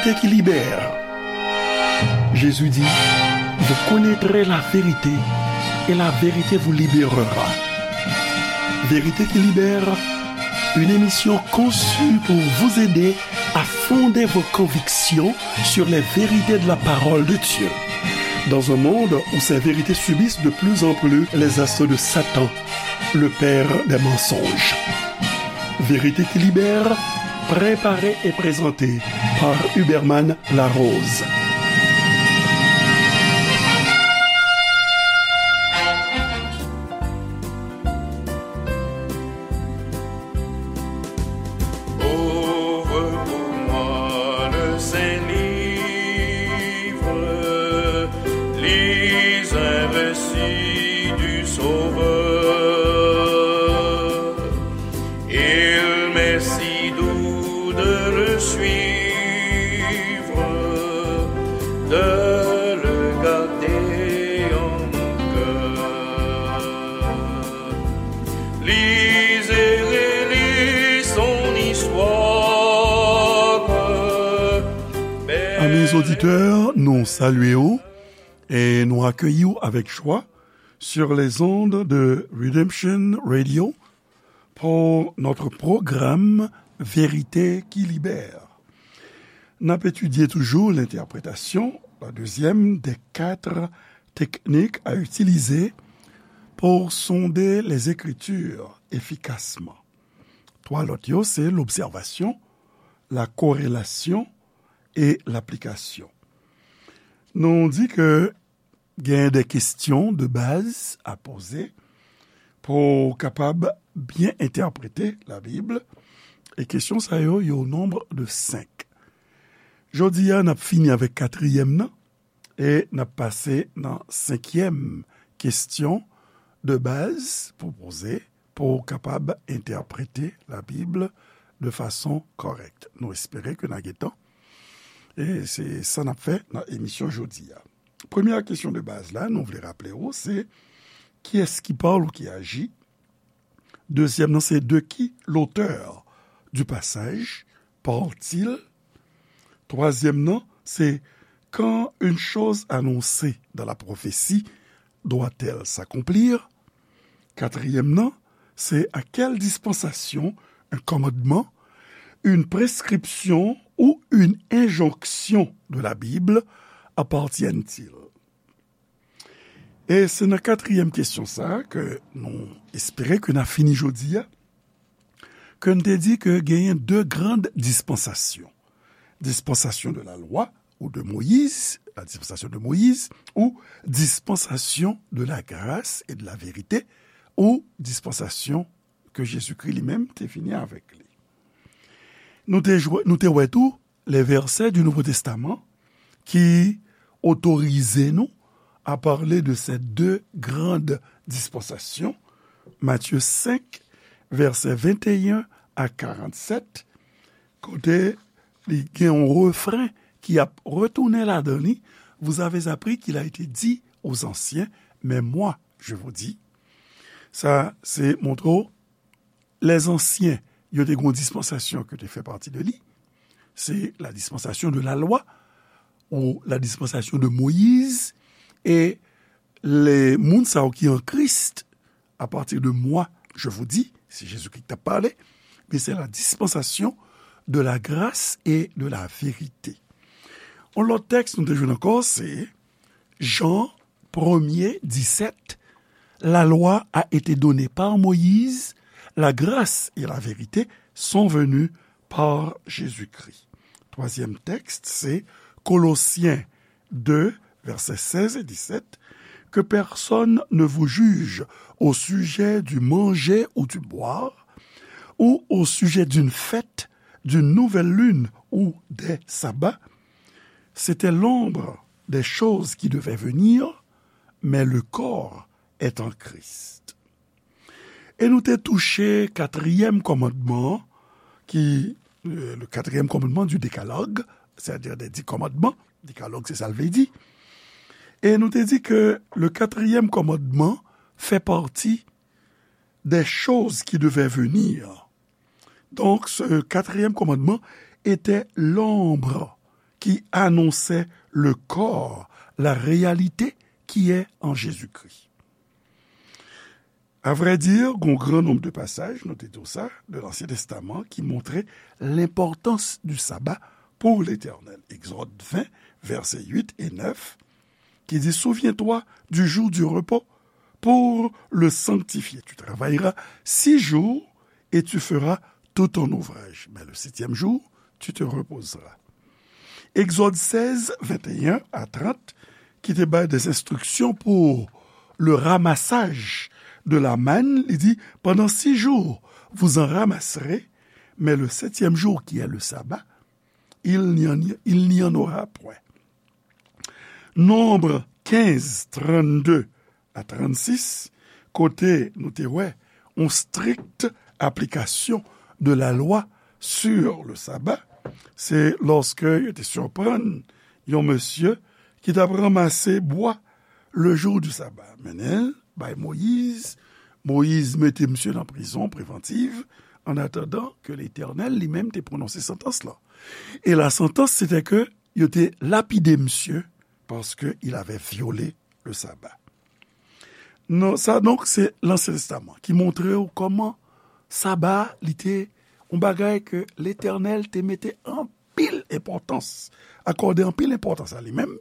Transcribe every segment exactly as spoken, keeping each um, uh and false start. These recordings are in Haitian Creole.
Vérité qui libère. Jésus dit, vous connaîtrez la vérité et la vérité vous libérera. Vérité qui libère, une émission conçue pour vous aider à fonder vos convictions sur les vérités de la parole de Dieu. Dans un monde où ces vérités subissent de plus en plus les assauts de Satan, le père des mensonges. Vérité qui libère, préparée et présentée par Huberman Larose. Ouvre pour moi le Saint Livre, lis un récit du Sauveur. Il m'est si doux de le suivre, de le garder en mon cœur. Lis et relis son histoire. Amis auditeurs, nou salye w e nou akeyi w avèk jwa sur les ondes de Redemption Radio pour notre programme Vérité qui libère. N ap etidye toujou l'interprétation, la deuxième des quatre techniques à utiliser pour sonder les Écritures efficacement. Twa lòt yo, se l'observation, la corrélation et l'application. Nou di ke gen de kesyon de baz a poze pou w kapab byen entèprete Labib. E kesyon sa yo, yo o nonb de senk. Jodi a, n ap fini avèk katriyèm nan e n ap pase nan senkyèm kesyon de baz pou poze, pou w kapab entèprete Labib de fason kòrèk. Nou espere ke n a gen tan. E se sa n ap fè nan emisyon jodi a. Premyè kesyon de baz la, nou vle raple w, se kiyès ki pale ou ki aji? Dezyèm nan, se de qui l'auteur du passage parle-t-il? Twazyèm nan, se quand une chose annoncée dans la prophétie doit-elle s'accomplir? Katriyèm nan, se à quelle dispensation un commandement, une prescription ou une injonction de la Bible appartiennent-ils? E se nan katriyèm kesyon sa a ke nou espere ke n a fini jodi a, ke n te di ke genyen de grann dispansasyon. Dispensation de la loi ou de Moïse, la dispensation de Moïse, ou dispensation de la grâce et de la vérité, ou dispensation ke Jezikri li menm te vini avèk li. Nou te jwe, nou te wè tou les versets du Nouveau Testament qui autorisent nous à parler de ces deux grandes dispensations, Matthieu cinq, versets vingt et un à quarante-sept, kote li gen yon refren ki ap retounen ladan li, vous avez appris qu'il a été dit aux anciens, mais moi, je vous dis. Sa, se montre w lèzansyen, yo te gen yon dispansasyon ki te fè pati de li. Se la dispensation de la loi ou la dispensation de Moïse. E le moun sa yo ki an Kris, à partir de moi, je vous dis, se Jezikri ki t ap pale, men se la dispensation de la grâce et de la vérité. Yon lòt tèks nou te jwenn ankò, se Jan premye, disèt, la loi a été donnée par Moïse, la grâce et la vérité sont venues par Jésus-Christ. Twazyèm tèks, se Kolosyen de, vèsè sèz e disèt, que personne ne vous juge au sujet du manger ou du boire, ou au sujet d'une fête, d'une nouvelle lune ou des sabbats. C'était l'ombre des choses qui devaient venir, mais le corps est en Christ. E nou te touche katriyèm kòmandman an, ki, euh, le quatrième commandement du décalogue, c'est-à-dire des dix commandements, décalogue se sa l vle di. E nou te di ke le quatrième commandement fait partie des choses qui devaient venir. Donc, ce quatrième commandement était l'ombre qui annonçait le corps, la réalité qui est en Jésus-Christ. À vrai dire, gon gran nonb de pasaj, nou te di w sa, de Lansyen Testaman ki montre lenpòtans di saba pou Letènèl. Egzòd ven, vèsè uit e nèf, ki di, Souviens-toi du jour du repos pour le sanctifier. Tu travailleras six jours et tu feras tout ton ouvrage. Mais le septième jour, tu te reposeras. Egzòd sèz, venteyen a trant, ki te bay des instructions pour le ramassage de la manne, li di, Pendant six jours, vous en ramasserez, mais le septième jour, qui est le sabbat, il n'y en, il n'y en aura point. Nonb kenz, trannde a trannsis, kote nou te wè yon strict application de la loi sur le sabbat, se lòske yo te siprann yon mesye ki t ap ranmase bwa le jour du sabbat. Mennen l bay Moyiz. Moyiz mete misye nan prizon prevantiv, an atandan ke Letènèl li menm te pwononse santans lan. E la santans, se te ke yo te lapide misye paske il avait violé le sabbat. Non, sa, donk, se Lansyen Testaman ki montre w kòman saba, li te yon bagay ke Letènèl te mete anpil enpòtans, akòde anpil enpòtans a li menm.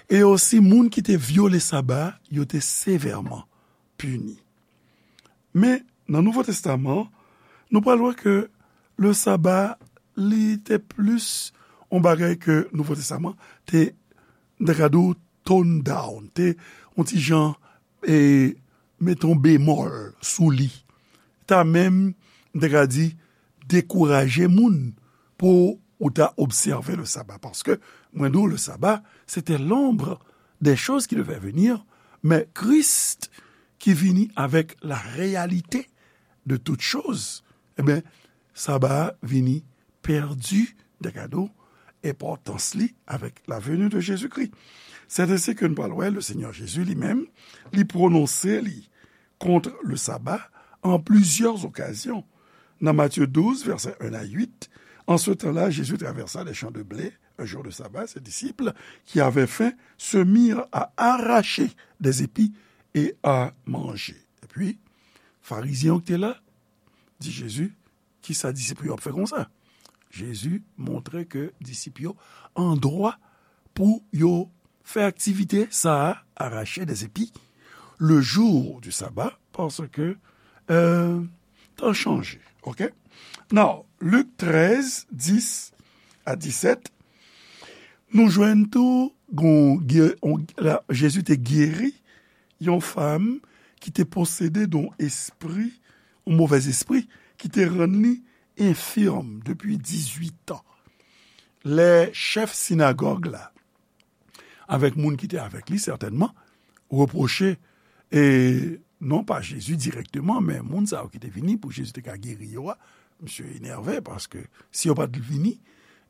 E osi, moun ki te vyole saba, yo te sevèman pini. Men, nan Nouvo Testaman, nou pral wè ke le saba, li te plis yon bagay ke Nouvo Testaman te, m ta ka di w, tone down, te yon ti jan, e, mete yon bemòl sou li. Ta menm, m ta ka di, dekouraje moun pou ou ta obsève le sabbat. Paske, mwen di w, le sabbat, c'était l'ombre des choses qui devaient venir, mais Christ qui vini avec la réalité de toutes choses, ebyen, saba a vini pèdi, m ta ka di w, enpòtans li avec la venue de Jésus-Christ. C'est ainsi que nou pral wè, le Seigneur Jésus li menm, li pwononse li contre le sabbat en plusieurs occasions. Dans Matthieu douze, versets un à huit, En ce temps-là, Jésus traversa les champs de blé un jour de sabbat. Ses disciples, qui avaient faim, se mirent à arracher des épis et à manger. Epi, Farizyen yo ki te la, di Jezi, kisa disip yo ap fè konsa? Jezi montre ke disip yo an dwa pou yo fè aktivite sa a, arracher des épis, le jour du sabbat, paske, euh, tan chanje, ok? Now, Lik trèz, dis a disèt, nou jwenn tou, gon, gè-, on, la, Jezi te geri yon fanm ki te posede de yon espri, yon movèz espri, ki te rann li enfim depi dizuit an. Lè chèf sinagòg la, avèk moun ki te avèk li, sètènman, repwoche, e non pa Jezi dirèkteman, men moun sa yo ki te vini pou Jezi te ka geri yo a, misye enève, paske si yo pa t vini,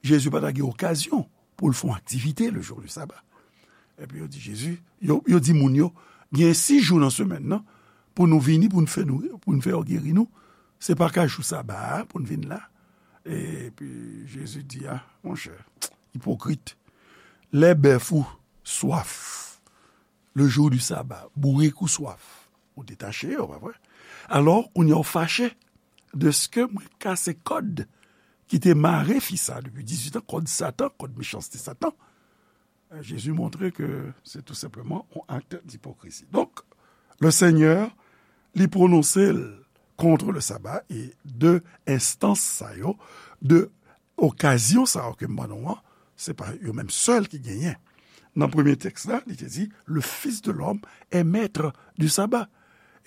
Jezi pa ta gen okazyon pou l fè yon aktivite le jour du sabbat. Epi yo di Jezi, yo, yo di moun yo, gen sis jou nan semèn nan, pou nou vini, pou n fè nou, pou n fè yo geri nou, se pa ka jou saba a pou n vin la. Epi Jezi di, a, monchè, ipokrit, lè bèf ou swaf, le jour du sabbat, bourik ou swaf, ou detache yo, pa vre? Alò, kounye a w fache, dèske mwen kase kòd ki te mare fi sa depi dizuit an, kòd Satan, kòd mechanste Satan. Jezi montre ke se tou senpleman yon akt dipokrizi. Donk, le Seigneur, li pwononse l kont le sabbat, e de enstans sa yo, de okazyon sa yo ke m ban nou an, se pa yo menm sèl ki genyen. Nan premye tèks la, li te di, Le Fils de l'homme est maître du sabbat.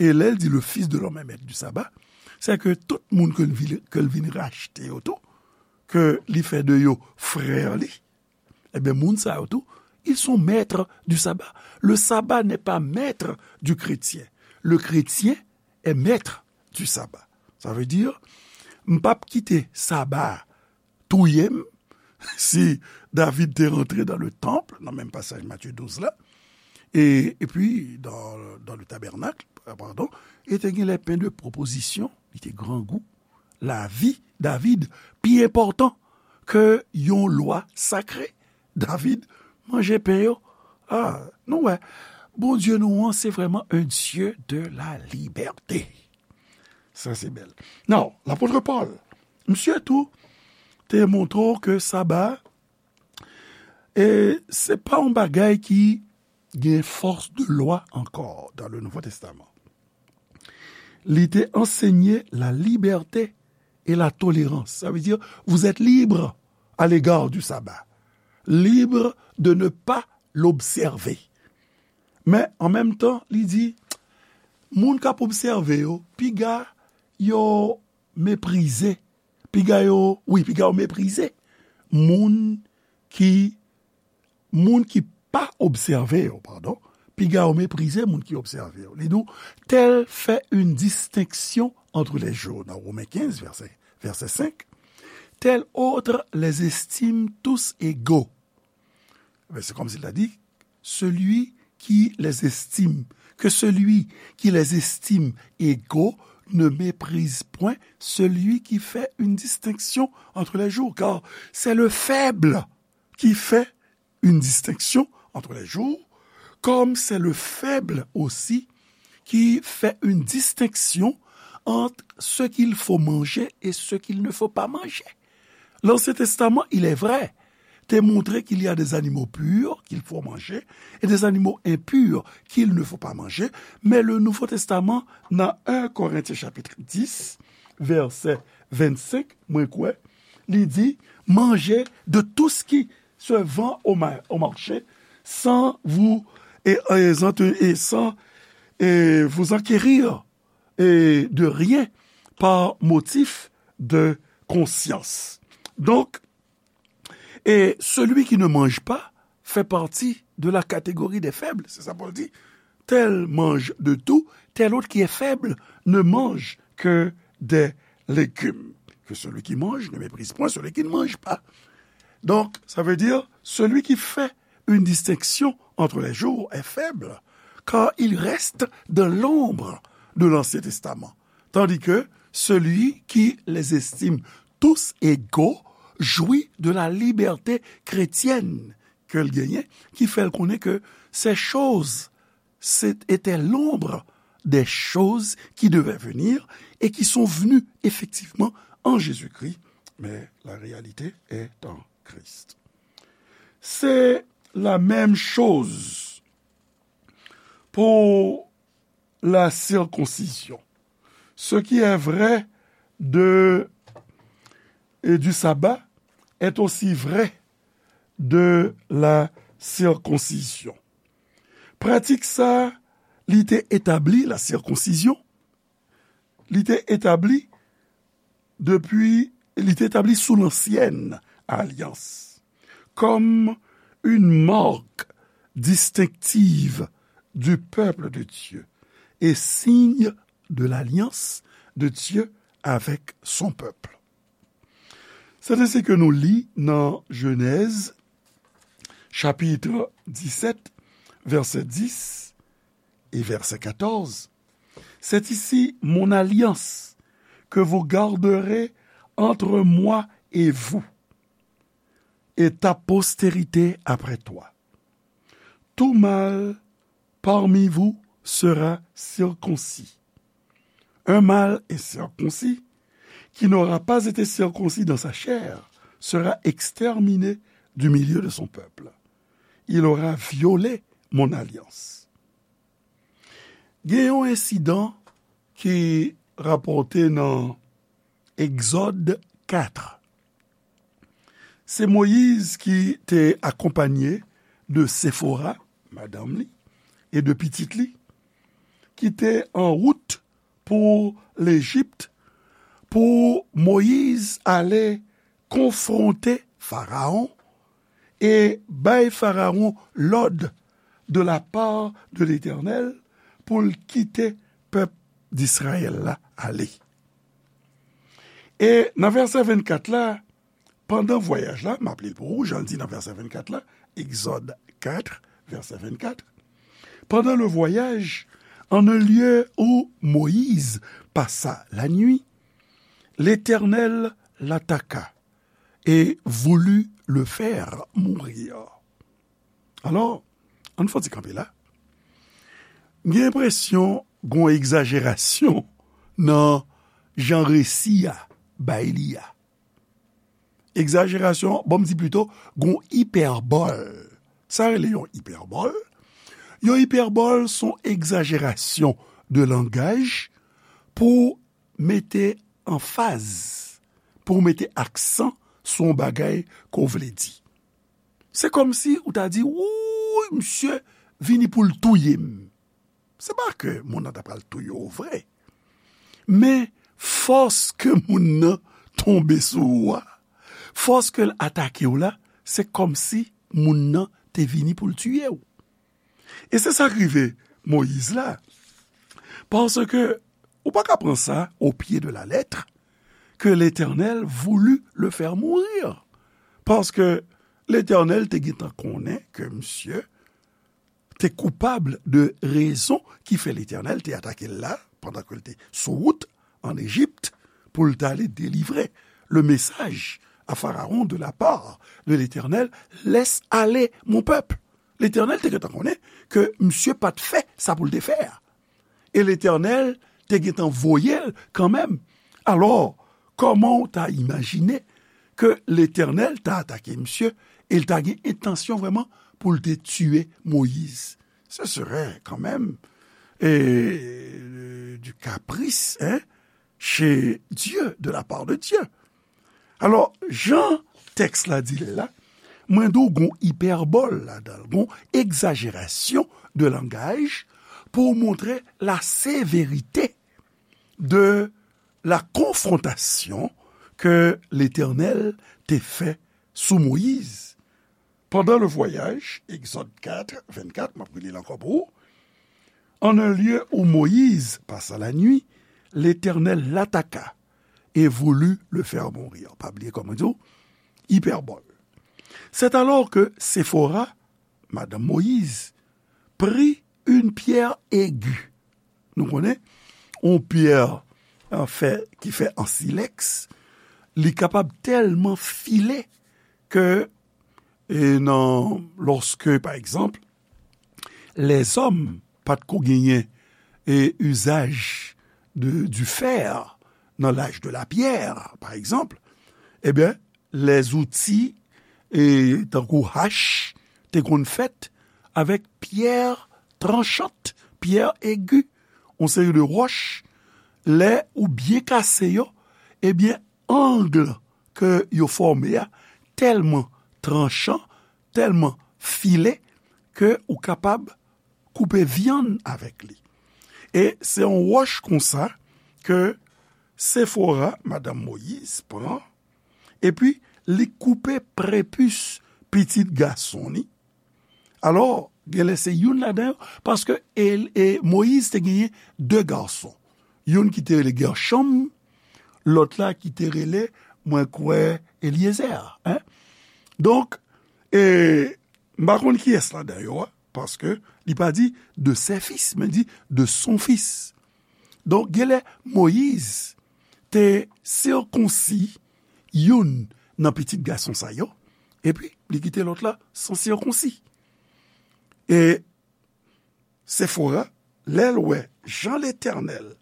E lè l di, Le Fils de l'homme est maître du sabbat, se ke tout moun ke l vin, ke l vin rachte yo tou, ke li fè de yo frè li, ebyen, moun sa yo tou, ils sont maîtres du sabbat. Le sabbat n'est pas maître du chrétien. Le chrétien est maître du sabbat. Sa vle di, m p ap kite saba a touye m, si David te rantre dans le temple, nan menm pasaj Matye douz la, e, epi, dans, dans le tabernacle, euh, pardon, e te gen les pains de proposition, li te grangou, lavi David pi enpòtan ke yon lwa sakre. David manje pen yo. Ah, nou wè, Bondye nou an, se vrèman un Dieu de la liberté. Sa, se bèl. Now, lapot Pòl, misye tou, te montre w ke Saba, e se pa yon bagay ki gen fòs de lwa ankò dans le Nouveau Testament. Li te ansenye la liberté et la tolérance. Ça veut dire, vous êtes libre à l'égard du sabbat. Libre de ne pas l'observer. Men, an menm tan, li di, moun k ap obsève yo, piga yo meprize, piga yo, wi, piga yo meprize moun ki, moun ki pa obsève yo, padon, piga yo meprize moun ki obsève yo. Li di w, tel fait une distinction entre les jours, dans Romains quinze, verset, verset cinq, tel autre les estime tous égaux. Mais c'est comme s'il a dit, celui qui les estime, que celui qui les estime égaux ne méprise point celui qui fait une distinction entre les jours, car c'est le faible qui fait une distinction entre les jours, comme c'est le faible aussi qui fait une distinction entre ce qu'il faut manger et ce qu'il ne faut pas manger. L'Ancien Testament, il est vrai, te montre qu'il y a des animaux purs qu'il faut manger et des animaux impurs qu'il ne faut pas manger. Mais le Nouveau Testament, dans un Corinthiens chapitre dix, verset vingt-cinq, mwen kwè, li di, mangez de tout ce qui se vend au, ma- au marché, sans vous, et, et sans, et sans, et vous enquérir, et de rien par motif de conscience. Donc, et celui qui ne mange pas fait partie de la catégorie des faibles. C'est ça Paul dit. Tel mange de tout, tel autre qui est faible ne mange que des légumes. Que celui qui mange ne méprise point celui qui ne mange pas. Donc, ça veut dire, celui qui fait une distinction entre les jours est faible, car il reste dans l'ombre de l'Ancien Testament, tandis que celui qui les estime tous égaux jouit de la liberté chrétienne ke l genyen, ki fè l konnen ke ces choses, c'est, étaient l'ombre des choses qui devaient venir et qui sont venues effectivement en Jésus-Christ, mais la réalité est en Christ. C'est la même chose pour la circoncision. Ce qui est vrai de, et du sabbat est aussi vrai de la circoncision. Pratik sa, li te etabli, la circoncision, li te etabli depi, li te etabli sou lansyèn alyans, comme une marque distinctive du peuple de Dieu et signe de l'alliance de Dieu avec son peuple. Se te sa ke nou li nan Jenèz, chapit disèt, vèsè dis e vèsè katòz. C'est ici mon alliance que vous garderez entre moi et vous, et ta postérité après toi. Tout mâle parmi vous sera circoncis. Un mâle incirconcis qui n'aura pas été circoncis dans sa chair sera exterminé du milieu de son peuple. Il aura violé mon alliance. Gen yon ensidan ki rapòte nan Egzòd kat. Se Moyiz ki te akonpanye de Sefora, madanm li, e de pitit li, ki te an wout pou Lejip, pou Moyiz ale konfwonte Farawon e bay Farawon lòd de la part de Letènèl pou l kite pèp Dizrayèl la ale. E nan vèsè vennkat la, pandan vwayaj la, m ap li l pou ou, jan l di nan vèsè vennkat la, Egzòd kat, vèsè vennkat. Pendant le voyage, en un lieu où Moïse passa la nuit, l'Éternel l'attaqua et voulut le faire mourir. Alò, ann fè yon ti kanpe la. M gen enpresyon gon egzajerasyon nan jan resi a bay li a. Egzajerasyon, bon, m di plito, gon ipèbòl. Sa rele yon ipèbòl? Yon ipèbòl se yon egzajerasyon de langaj pou mete anfaz, pou mete aksan sou yon bagay ke w vle di. Se kòmsi ou ta di, wouy, misye vini pou l touye m. Se pa ke moun nan ta pral touye w vre, men fòs ke moun nan tonbe sou ou a, fòs ke l atake w la, se kòmsi moun nan te vini pou l tiye w. E se sa k rive Moyiz la. Paske ou pa ka pran sa au pied de la lettre, que l'Éternel voulut le faire mourir. Paske Letènèl te gentan konnen ke misye te koupab de rezon ki fè Letènèl te atake l la, pandan ke l te sou wout ann Ejip, pou l t ale delivre le message à Pharaon de la part de l'Éternel, laisse aller mon peuple. Letènèl te gentan konnen ke misye pa t fè sa pou l te fè a. E Letènèl te gentan voye l kanmenm. Alò, kòman w ta imajine ke Letènèl ta atake misye e l ta gen entansyon vrèman pou l te tiye Moyiz? Ce serait quand même, euh, du caprice, hein, chez Dieu, de la part de Dieu. Alò, jan tèks la di l la, mwen di w gon ipèbòl ladan l, gon egzajerasyon de langaj pou w montre la sévérité de la confrontation que l'Éternel te fè sou Moyiz. Pendant le voyage, Exode quatre, vingt-quatre, m ap rele l ankò pou ou. En un lieu où Moïse passa la nuit, l'Éternel l'attaqua et voulut le faire mourir. Pa bliye kòman di w, ipèbòl. C'est alors que Séphora, madanm Moyiz, prit une pierre aiguë. Nou konnen, yon pyè, an fè, ki fè an silèks, li kapab tèlman file ke, e nan, lòske, pa egzanp, lèzòm pa t ko genyen, e, izaj de, du fer nan l'âge de la pierre, pa egzanp, ebyen, lèzouti, e, tankou hach, te konn fèt avèk pyè tranchant, pyè egi, yon seri de wòch, lè ou byen kase yo, ebyen, ang ke yo fòme a tèlman tranchan, tèlman file, ke ou kapab koupe vyann avèk li. E se yon wòch konsa ke Sefora, madanm Moyiz, pran, epi li koupe prepis pitit gason li. Alò, genlè se youn ladan yo, paske e, e Moyiz te genyen de gason. Youn ki te rele Gèchòm, lòt la ki te rele, mwen kwè, Elyezè, en. Donk, e, m pa konn kiyès ladan yo a, paske li pa di de ses fils, men di de son fils. Donk, genlè Moyiz te sikonsi youn nan pitit gason sa yo, epi li kite lòt la san sikonsi. E Sefora, lè l wè jan Letènèl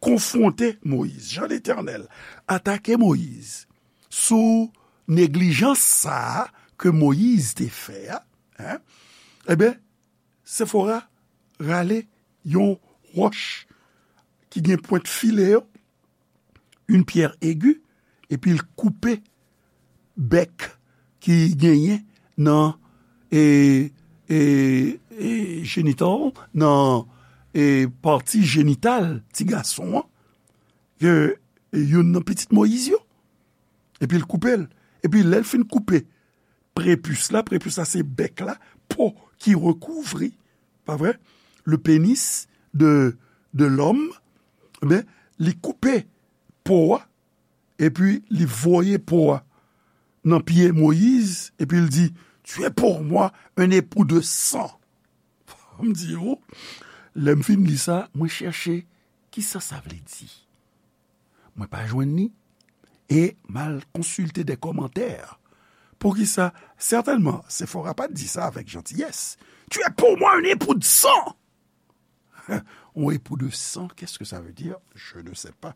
konfwonte Moyiz, jan Letènèl atake Moyiz sou neglijans sa a ke Moyiz te fè a, en, ebyen, Sefora rale yon wòch ki gen pwent file yo, une pierre aiguë, epi l koupe bèk ki genyen nan, e, e, e, jenital, nan, e, pati jenital ti gason an, ke, e, youn nan pitit Moyiz yo. Epi l koupe l. Epi lè l fin koupe prepis la, prepis la se bèk la, po ki rekouvri, pa vre? Le pénis de, de l'homme, ebyen, li koupe po a, epi li voye po a nan pye Moyiz, epi l di, tu es pour moi un époux de sang. M di, o, lè m fin li sa, mwen chèche kisa sa vle di. Mwen pa jwenn li. e m al konsilte de kòmantè. Poukisa? Sètènman, Sefora pa t di sa avèk jantiyès. Tu es pour moi un époux de sang! Un époux de sang, qu'est-ce que ça veut dire? Je ne sais pas.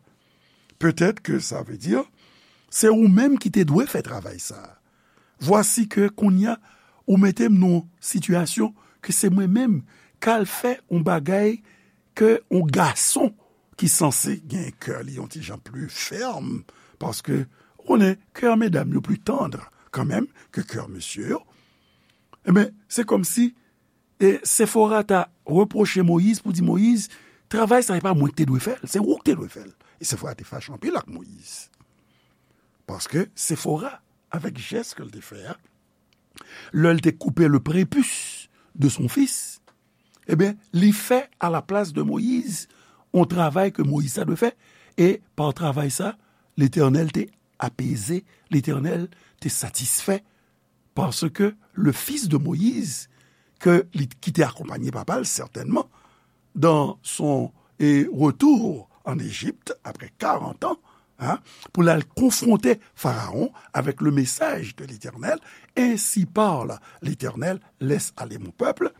Peut-être que ça veut dire, se ou menm ki te dwe fè travay sa. Vwasi ke kounye a, ou mete m nan yon sitiyasyon ke se mwen menm k al fè yon bagay ke yon gason ki sanse gen kè li yon ti jan pli fèm, paske ou konnen kè medam yo pli tann kanmenm ke kè mesye yo. Ebyen, se kòmsi e Sefora ta repwoche Moyiz pou di, Moyiz, travay sa, se pa mwen ki te dwe fè l, se ou ki te dwe fè l. E Sefora te fache anpil ak Moyiz. Paske Sefora, avèk jès ke l te fè a, lè l te koupe le prépuce de son fils, ebyen, li fè a la plas de Moyiz yon travay ke Moyiz ta dwe fè, e pa travay sa, Letènèl te apeze, Letènèl te satisfè, paske le fils de Moïse, ke li, ki te akonpanye papa l, sètènman, dans son, eh, retour en Égypte, après quarante ans, hein, pou l al konfwonte Farawon avec le message de l'Éternel, ainsi parle l'Éternel, laisse aller mon peuple.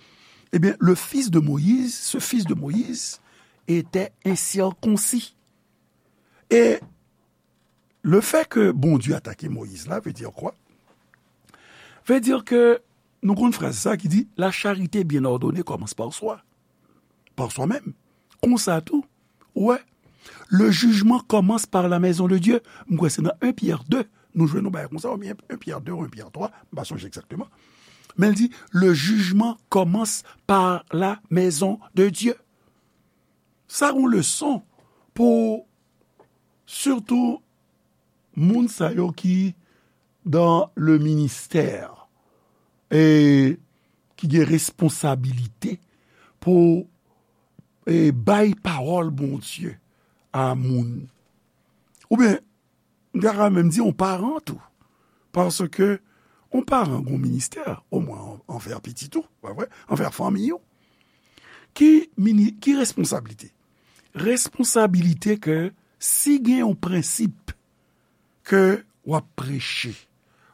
Eh bien, le fils de Moïse, ce fils de Moïse, était incirconcis. Et le fait que Bondye atake Moyiz la, veut dire quoi? Veut dire que nou konn fraz sa ki di, la charité bien ordonnée commence par soi, par soi-même. Konsa tou, ou wè, le jugement commence par la maison de Dieu. M kwè se nan un Pierre deux, nou jwenn yon bagay konsa, oubyen un Pierre deux ou un Pierre trois, m pa sonje egzakteman. Men l di, le jugement commence par la maison de Dieu. Sa yon leson pou sitou moun sa yo ki dans le ministère e ki gen responsabilite pou e bay pawòl Bondye a moun. Oubyen, m ta ka menm di yon paran tou. Paske yon paran gen yon ministè, omwen an, anvè pitit ou, pa vre? Anvè fanmi ou. Ki mini, ki responsablite? Responsablite ke si gen yon prensip ke w ap preche,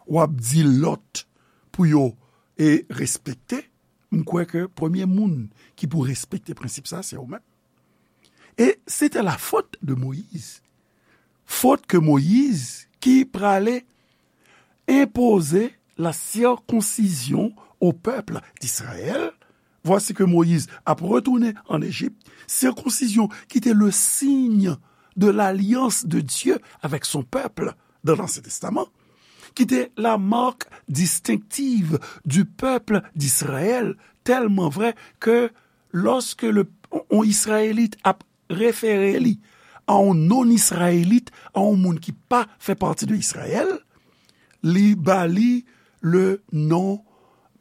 w ap di lòt pou yo e respekte, m kwè ke premye moun ki pou respekte prensip sa, se ou menm. Et c'était la faute de Moïse. Faute que Moïse, qui pralait imposer la circoncision au peuple d'Israël, voici que Moïse a retourné en Égypte, circoncision qui était le signe de l'alliance de Dieu avec son peuple dans l'Ancien Testament, qui était la marque distinctive du peuple d'Israël, tellement vrai que lorsque le, on Israélite a référé li a yon non-Israélite, a yon moun ki pa fè pati de Israël, li ba li le non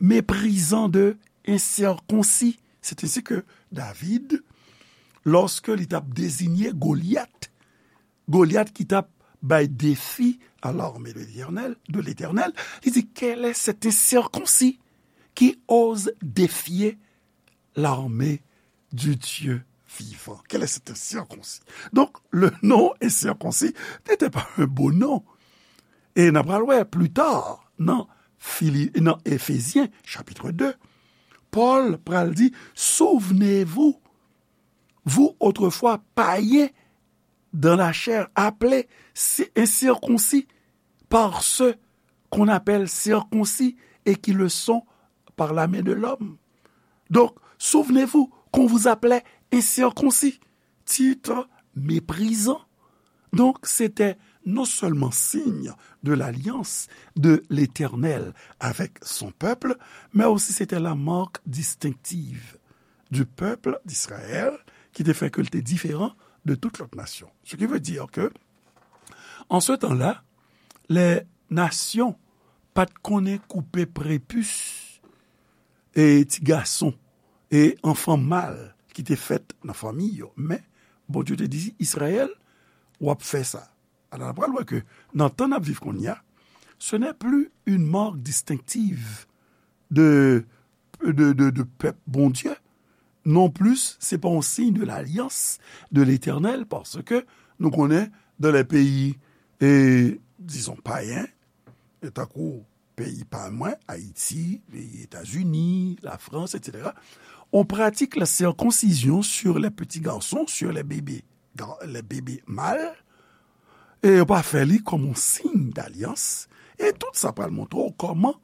méprisant de incirconcis. C'est ainsi que David, lorsque li t ap désigner Goliath, Goliath ki t ap bay défi à l'armée de l'Éternel, de l'Éternel, li di, quel est cet incirconcis qui ose défier l'armée du Dieu vivant? Quel est cet incirconcis? Donc, le nom incirconcis n'était pas un beau nom. Et n ap pral wè plus tard, nan, Fili, nan Éphésiens, chapitre deux, Paul pral di, souvenez-vous, vous autrefois païens dans la chair, appelés incirconcis par ceux qu'on appelle circoncis et qui le sont par la main de l'homme. Donc, souvenez-vous qu'on vous appelait incirconcis, titre méprisant. Donc, c'était non seulement signe de l'alliance de l'Éternel avec son peuple, mais aussi c'était la marque distinctive du peuple d'Israël, ki te fè ke l te diferan de tout lòt nasyon. Ce qui veut dire que, en ce temps-là, les nations pa t konnen koupe prepis e ti gason e anfan mal ki te fèt nan fanmi yo. Men, Bondye te di Izrayèl, w ap fè sa. Alò, n ap pral wè ke nan tan n ap viv kounye a, ce n'est plus une marque distinctive de, de, de, de pèp Bondye. Non plis, se pa yon siy de lalyans de Letènèl, paske nou konnen dans les pays e, dizon, payen, e tankou peyi pa mwen, Ayiti, peyi Etazini, Lafrans, etsetera, on pratique la circoncision sur les petits garçons, sur les bébés, gar- les bébés mâles, e yo pa fè li kòm on siy dalyans, e tout sa pral montre w kòman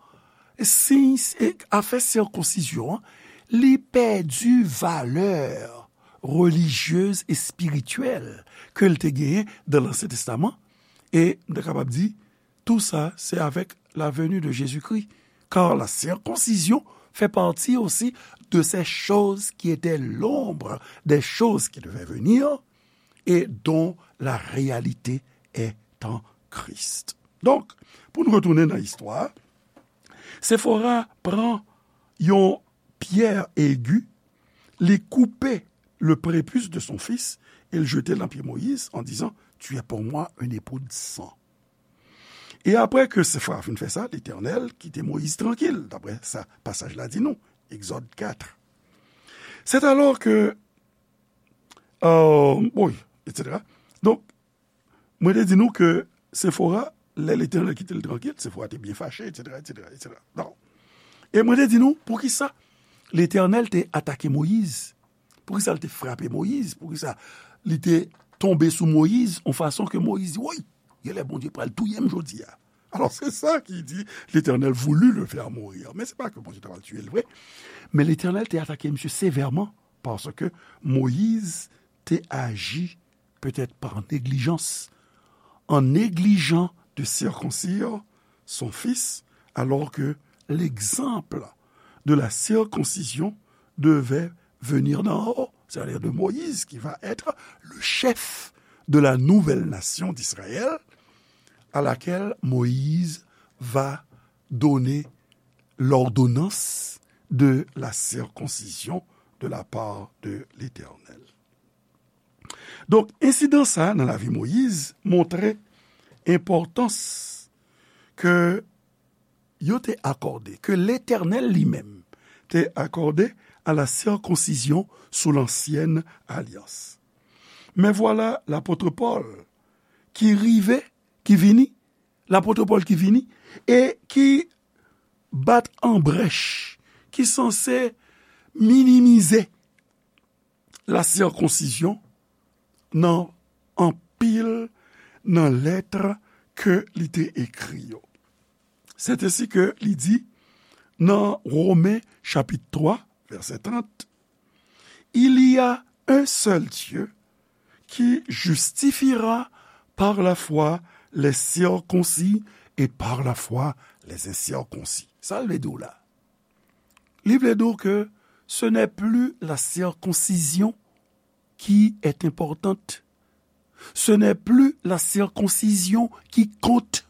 siy, e afè sirkonsizyon an, li pèdi valè relijyez e espirityèl ke l te genyen dan Lansyen Testaman, e m ta kapab di, tou sa, se avèk la venue de Jésus-Christ, car la circoncision fait partie aussi de ces choses qui étaient l'ombre des choses qui devaient venir et dont la réalité est en Christ. Donk, pou n retounen nan istwa, Sefora pran yon pyè egi, li koupe le prépuce de son fils et le jeter dans pied Moïse en disant, tu es pour moi un époux de sang. E apre ke Sefora fin fè sa, Letènèl kite Moyiz trankil, daprè sa pasaj la di nou, Egzòd kat. C'est alors que, euh, oui, etsetera. Donk, mwen te di nou ke Sefora, lè Letènèl kite l trankil, Sefora te byen fache, etsetera, etsetera, etsetera. Bon. E mwen te di nou, poukisa Letènèl te atake Moyiz? Poukisa l te frape Moyiz? Poukisa li te tonbe sou Moyiz yon fason ke Moyiz di, woy, genlè Bondye pral touye m jodi a. Alors, c'est ça qui dit, l'Éternel voulut le faire mourir. Men se pa ke Bondye ta pral tiye l vre. Men Letènèl te atake misye sevèman paske Moyiz te aji peut-être par négligence, en négligeant de circoncire son fils, alors que l'exemple de la circoncision devait venir d'en haut, c'est-à-dire de Moïse, qui va être le chef de la nouvelle nation d'Israël, à laquelle Moïse va donner l'ordonnance de la circoncision de la part de l'Éternel. Donk, ensidan sa a nan lavi Moyiz montre enpòtans ke yo te akòde, ke Letènèl li menm te akòde à la circoncision sous l'ancienne alliance. Mais voilà l'apôtre Paul qui rive, qui vini, l'apôtre Paul qui vini, e ki bat an brèch, ki sanse minimize la circoncision nan anpil nan lèt ke li te ekri yo. C'est ainsi que li di nan Romen chapit twa, vèsè trant, il y a un seul Dieu qui justifiera par la foi les circoncis et par la foi les incirconcis. Sa l vle di w la? Li vle di w ke ce n'est plus la circoncision qui est importante. Ce n'est plus la circoncision qui compte.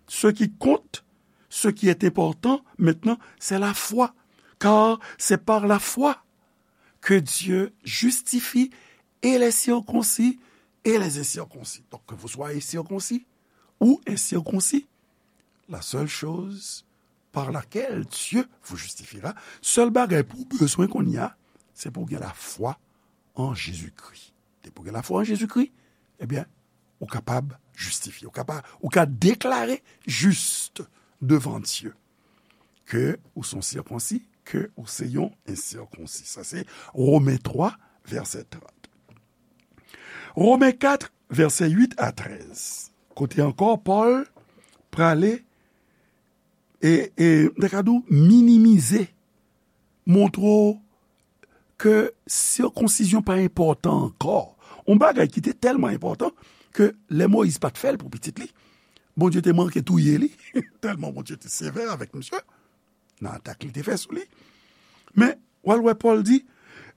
Ce qui compte, ce qui est important maintenant, c'est la foi. Car c'est par la foi que Dieu justifie et les circoncis et les incirconcis. Donc, que vous soyez circoncis ou incirconcis, la seule chose par laquelle Dieu vous justifiera, sèl bagay pou w bezwen kounye a, se pou w gen lafwa an Jezikri. Depi w gen lafwa an Jezikri, ebyen, ou kapab jistifye, ou kapab, ou ka deklare jis devan Dye ke ou se yon sirkonsi, ke ou se yon ensirkonsi. Sa se Women twa, vèsè trant. Women kat, vèsè uit a trèz. Kote ankò Pòl prale e, e, m ta ka di w, minimize, montre w ke sikonsizyon pa enpòtan ankò. Yon bagay ki te tèlman enpòtan ke lè Moyiz pa t fè l pou pitit li, Bondye te manke touye li, tèlman Bondye te sevè avèk misye. Nan atak li te fè sou li. Men, w al wè Pòl di,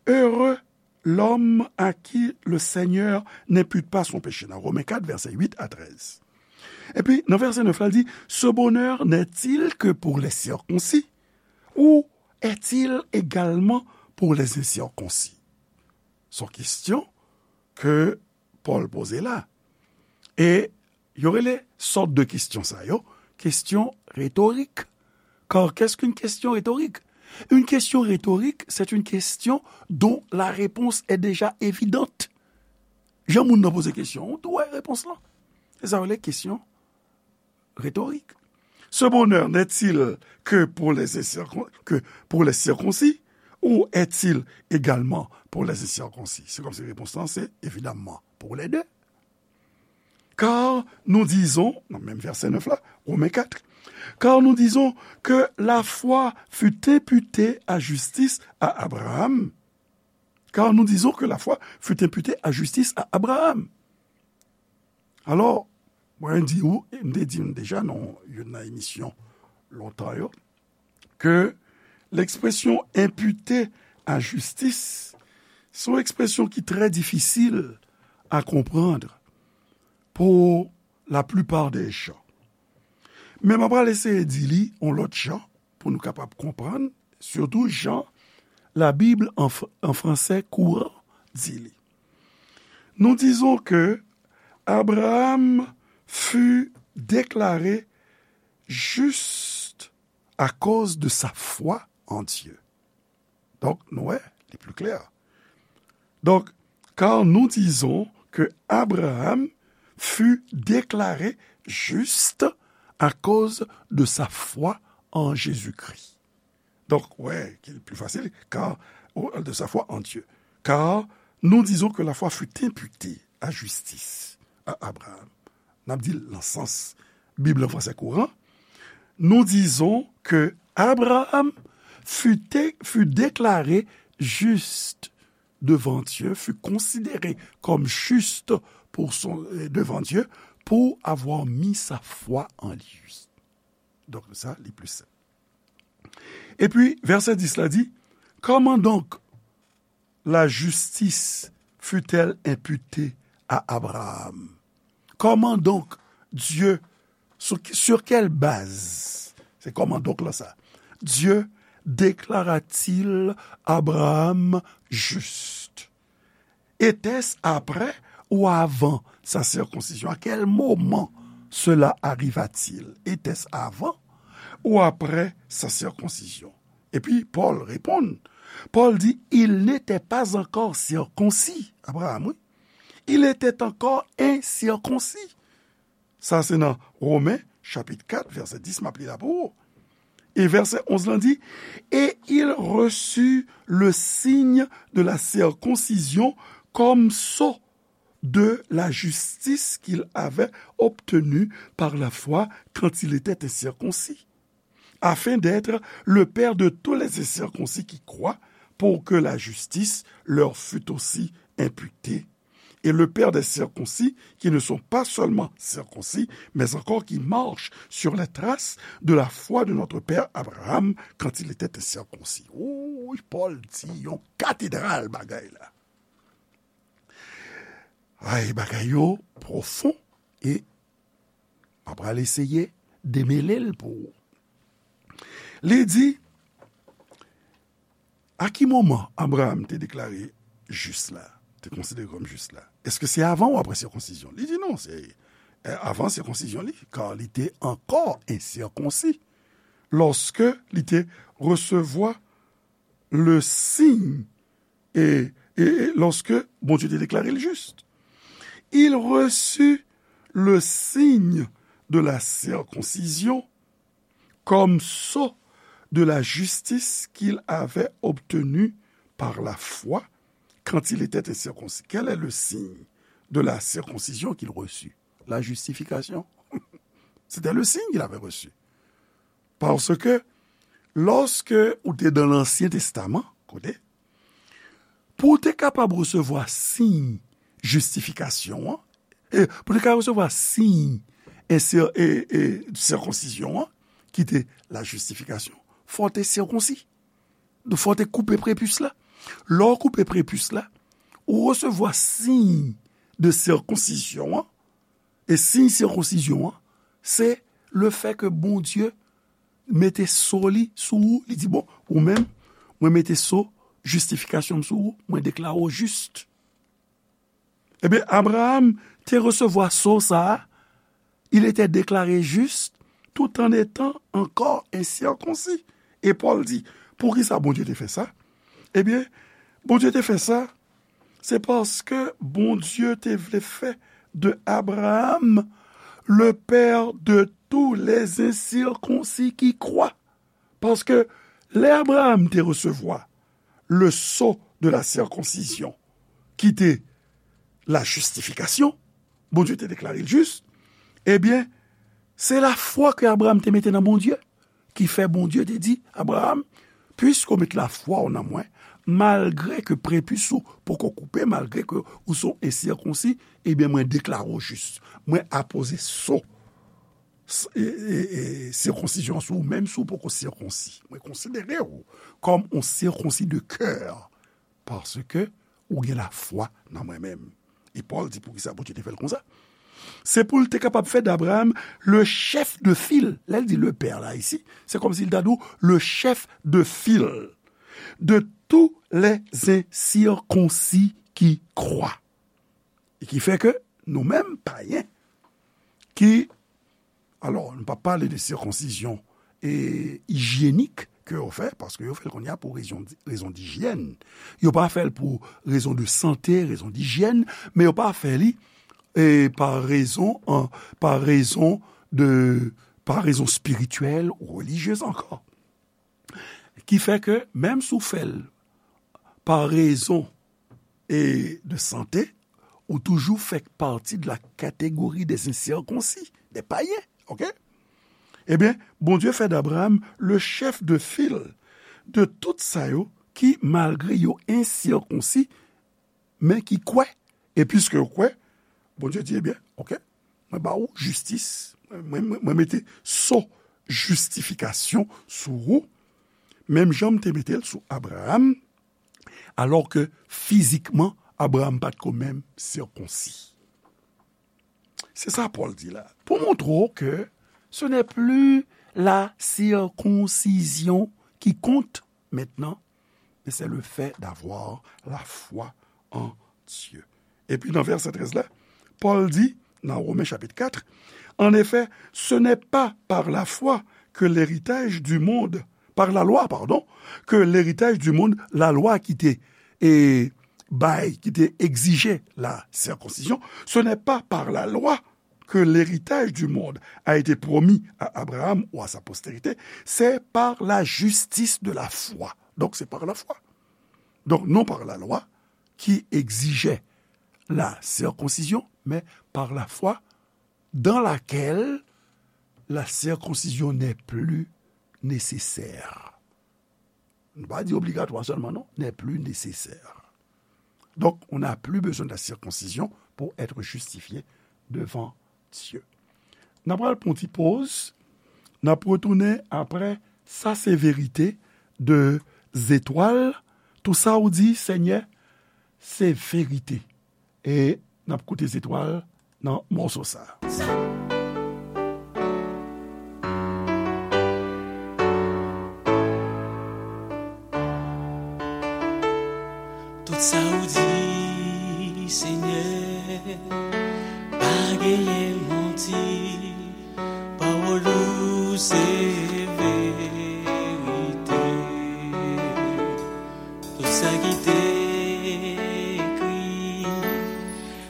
heureux l'homme à qui le Seigneur n'impute pas son péché, nan Women kat, vèsè uit a trèz. Epi, nan vèsè nèf la, l di, ce bonheur n'est-il que pour les circoncis ou est-il également pour les incirconcis? Se yon kesyon ke Pòl poze la. E yo rele sòt de kesyon sa yo, kesyon retorik. Car qu'est-ce qu'une question rhétorique? Une question rhétorique, c'est une question dont la réponse est déjà évidente. Jan moun nan poze kesyon, ou tou wè repons lan. Sa yo rele kesyon rhétorique. Ce bonheur n'est-il que pour les incircon-, que pour les circoncis, ou est-il également pour les incirconcis? Se kòmsi repons lan se, évidemment, pour les deux. Car nous disons, nan menm vèsè nèf la, Romains quatre, car nous disons que la foi fut imputée à justice à Abraham. Car nous disons que la foi fut imputée à justice à Abraham. Alò, mwen di ou, e m te di nou deja nan youn nan emisyon lontan yo, ke l'expression imputer à justice, se yon ekspresyon ki trè difisil a konprann pour la plupart des gens. Men mwen pral eseye di li yon lòt jan pou nou kapab konprann, surtout jan la Bible en fr-, en français courant di li. Nous disons que Abraham fut déclaré juste à cause de sa foi en Dieu. Donk, nou wè, li pli klè. Donc, car nous disons que Abraham fut déclaré juste à cause de sa foi en Jésus-Christ. Donk, wè, ki pli fasil, car, ou, de sa foi en Dieu. Car nous disons que la foi fut imputée à justice à Abraham. N ap di l nan sans Bib lan fransè kouran. Nous disons que Abraham fut, fut déclaré juste devant Dieu, fut considéré comme juste pour son, euh, devant Dieu, pour avoir mis sa foi en lui. Donk, sa, li pli senp. Epi, vèsè dis la di, comment donc la justice fut-elle imputée à Abraham? Comment donc Dieu, sur, sur quelle base? Se comment donc lan sa. Dieu déclara-t-il Abraham juste? Était-ce après ou avant sa circoncision? À quel moment cela arriva-t-il? Était-ce avant ou après sa circoncision? Epi Pòl reponn. Pòl di, il n'était pas encore circoncis. Abraham, wi. Il était encore incirconcis. Sa se nan Romen, chapit kat, vèsè dis, m ap li la pou ou. E vèsè onz lan di, et il reçut le signe de la circoncision comme sceau de la justice qu'il avait obtenue par la foi quand il était incirconcis, afin d'être le père de tous les incirconcis qui croient, pour que la justice leur fût aussi imputée. Et le père des circoncis, qui ne sont pas seulement circoncis, mais encore qui marchent sur les traces de la foi de notre père Abraham quand il était incirconcis. Wi, Pòl di yon katedral bagay la. Ay, bagay yo pwofon e m ap pral eseye demele l pou ou. Li di, a ki moman Abraham te deklare jis la, te konsidere kòm jis la? Èske se avan ou apre sikonsizyon? Li di non, se, eh, avan sikonsizyon li, kar li te ankò ensikonsi lòske li te resevwa le signe, et, et, et lorsque Bondye te deklare l jis. Il reçut le signe de la circoncision comme sceau de la justice qu'il avait obtenue par la foi quand il était incirconcis. Quel est le signe de la circoncision qu'il reçut? La justification. C'était le signe qu'il avait reçu. Paske, lòske ou te nan Ansyen Testaman, kote, pou w te kapab resevwa siy jistifikasyon an, e, pou w te kapab resevwa siy e, e, e, sikonsizyon an, ki te la jistifikasyon, fò w te sikonsi. Fò w te koupe prepis la. Lè w koupe prepis la, ou resevwa siy de sikonsizyon an, e siy sikonsizyon an, se lefètke Bondye mete so li sou ou, li di, bon, ou menm, mwen mete so jistifikasyon m sou ou, mwen deklare w jis. Ebyen, Abraham te resevwa so sa a, il était déclaré juste tout en étant encore incirconcis. E Pòl di, poukisa Bondye te fè sa? Ebyen, Bondye te fè sa, se paske Bondye te vle fè de Abraham le père de tous les incirconcis qui croient. Paske lè Abraham te resevwa le sceau de la circoncision, ki te la justification, Bondye te deklare l jis, ebyen, se lafwa ke Abraham te mete nan Bondye, ki fè Bondye te di, Abraham, piske w met lafwa w nan mwen, malgre ke prepis ou poko koupe, malgre ke ou se yon ensirkonsi, ebyen, mwen deklare w jis. Mwen apoze sceau s-, e, e, e, sirkonsizyon sou ou, menm si w poko sirkonsi. Mwen konsidere w kòm yon sirkonsi de kè, paske ou gen lafwa nan mwen menm. E Pòl di poukisa Bondye te fè l konsa. Se pou l te kapab fè d'Abraham le chef de file. Lè l di le père la isi, se kòmsi l ta di w le chef de file de tous les incirconcis qui croient. E ki fè ke nou menm, payen, ki, alò, nou pa pale de sirkonsizyon e ijyenik ke yo fè, paske yo fè l kounye a pou rezon, rezon dijyèn. Yo pa fè l pou rezon de sante, rezon dijyèn, men yo pa fè li, e, pa rezon, an, pa rezon de, pa rezon espirityèl ou relijyez ankò. Ki fè ke, menm si w fè l pa rezon e de sante, ou toujou fè pati de la catégorie des incirconcis, des païens, ok? Ebyen, Bondye fè d'Abraham le chef de file de tout sa yo ki, malgre yo ensirkonsi, men ki kwè. E piske yo kwè, Bondye di, ebyen, ok, mwen ba ou jistis, mwen, mwen, mwen mete sceau jistifikasyon sou ou, menm jan m te mete l sou Abraham, alò ke fizikman, Abraham pa t ko menm sirkonsi. Se sa Pòl di la. Pou montre w ke ce n'est plus la circoncision qui compte maintenant, mais c'est le fait d'avoir la foi en Dieu. Epi nan vèsè trèz la, Pòl di, nan Women chapit kat, en effet, ce n'est pas par la foi que l'héritage du monde, par la loi, pardon, que l'héritage du monde, lalwa ki te, e, bay, ki te egzije la sirkonsizyon, ce n'est pas par la loi que l'héritage du monde a été promis à Abraham ou à sa postérité, c'est par la justice de la foi. Donc, c'est par la foi. Donc, non par la loi qui exigeait la circoncision, mais par la foi dans laquelle la circoncision n'est plus nécessaire. Nou pa di obligatwa sèlman, non, n'est plus nécessaire. Donc, on n'a plus besoin de la circoncision pour être justifié devant Dieu. N ap pral pran yon ti poz, n ap retounen apre. Sa se verite de zetwal. Tou sa ou di, Senyè, se verite. E n ap koute zetwal nan mòso sa. Tout sa ou di, Senyè, pa genyen manti. Pawòl ou se verite. Tout sa ki te ekri,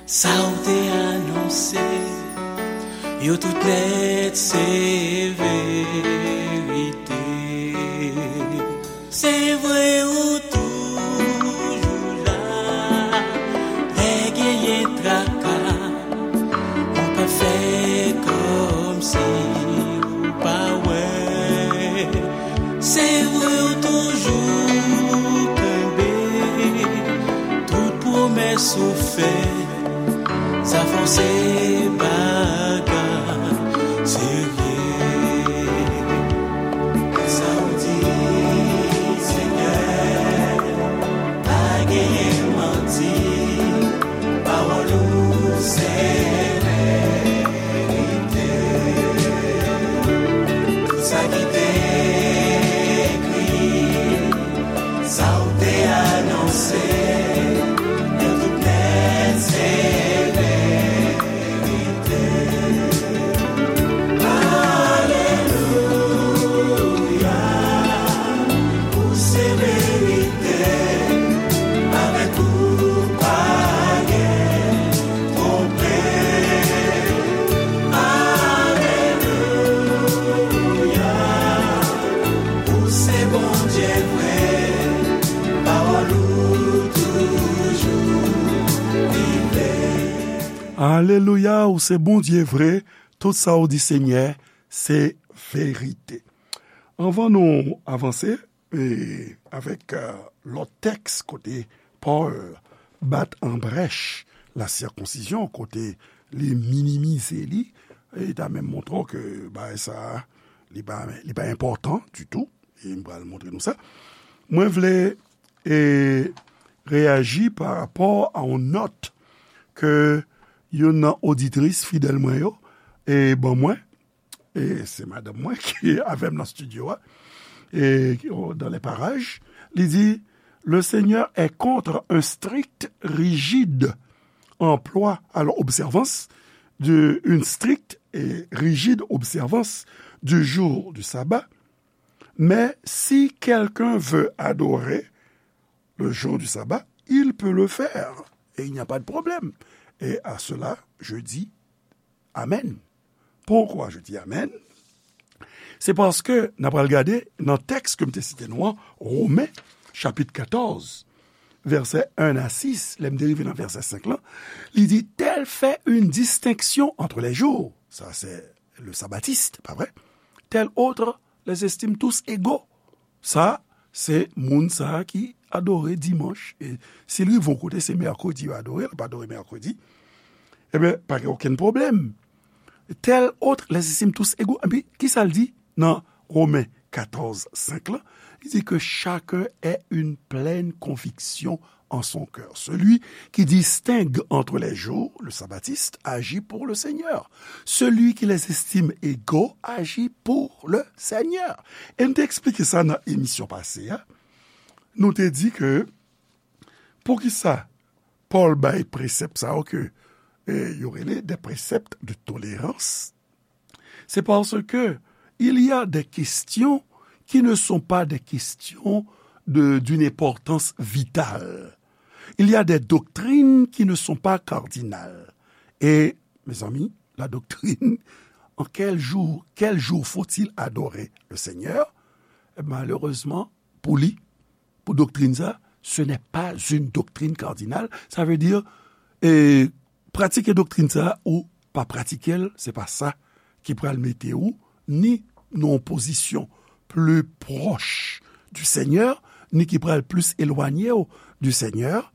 sa w te anonse, yo tout nèt se verite. Se vre ou toujou la, lè genyen traka, ou pa fè kòmsi ou pa wè. Se vre ou toujou kenbe tout pwomès ou fè. Sa fè w se bagay serye. Sa w di, Senyè, pa genyen manti. Pawòl ou se verite. Tout sa ki te ekri, sa w te anonse, yo tout nèt se verite. Alelouya, ou se verite, avèk ou pa gen twonpe. Alelouya, ou se Bondye vre, tout sa ou di, Senyè, se verite. Anvan nou avanse, e, avèk, e, lòt tèks kote Pòl bat an brèch la sirkonsizyon, kote li minimize li, e ta menm montre w ke bagay sa a, li pa, li pa enpòtan ditou, e m pral montre nou sa. Mwen vle, e, reyaji pa rapò a yon nòt ke youn nan oditris fidèl mwen yo, e, ban mwen, e se madanm mwen ki avè m nan estidyo a, e, dans les parages, li di, Le Seigneur est contre un strict, rigide emploi, alors observance, de, une stricte et rigide observance du jour du sabbat, mais si quelqu'un veut adorer le jour du sabbat, il peut le faire, et il n'y a pas de problème. Et à cela, je dis Amen. Pourquoi je dis amen? Se paske n ap pral gade nan tèks ke m te site nou an, Women, chapit katòz, vèsè en a sis, lè m te rive nan vèsè senk lan, li di, Tel fait une distinction entre les jours. Ça, c'est le sabbatiste, pas vrai? Tel autre les estime tous égaux. Sa, se moun sa a ki adore dimanch. E si l rive yon kote, se mèkredi yo adore, l ap adore mèkredi. Ebyen, pa gen okenn pwoblèm. Tel autre les estime tous égaux. Epi, kisa l di nan Women katòz senk lan? Li di que chacun ait une pleine conviction en son cœur. Celui qui distingue entre les jours, le sabbatiste, agit pour le Seigneur. Celui qui les estime égaux agit pour le Seigneur. E n te eksplike sa nan emisyon pase a. Nou te di ke poukisa Pòl bay presèp sa yo ke, e, yo rele des préceptes de tolérance? C'est parce que il y a des questions qui ne sont pas des questions de, d'une importance vitale. Il y a des doctrines qui ne sont pas cardinales. Et, mes amis, la doctrine, en quel jour, quel jour faut-il adorer le Seigneur? Malheureusement, pour lui, pour doctrine ça, ce n'est pas une doctrine cardinale. Ça veut dire, e, pratike doktrin sa a ou pa pratike l, se pa sa ki pral mete ou ni nan yon pozisyon pli pwòch du Seigneur, ni ki pral plis elwanye w du Seigneur.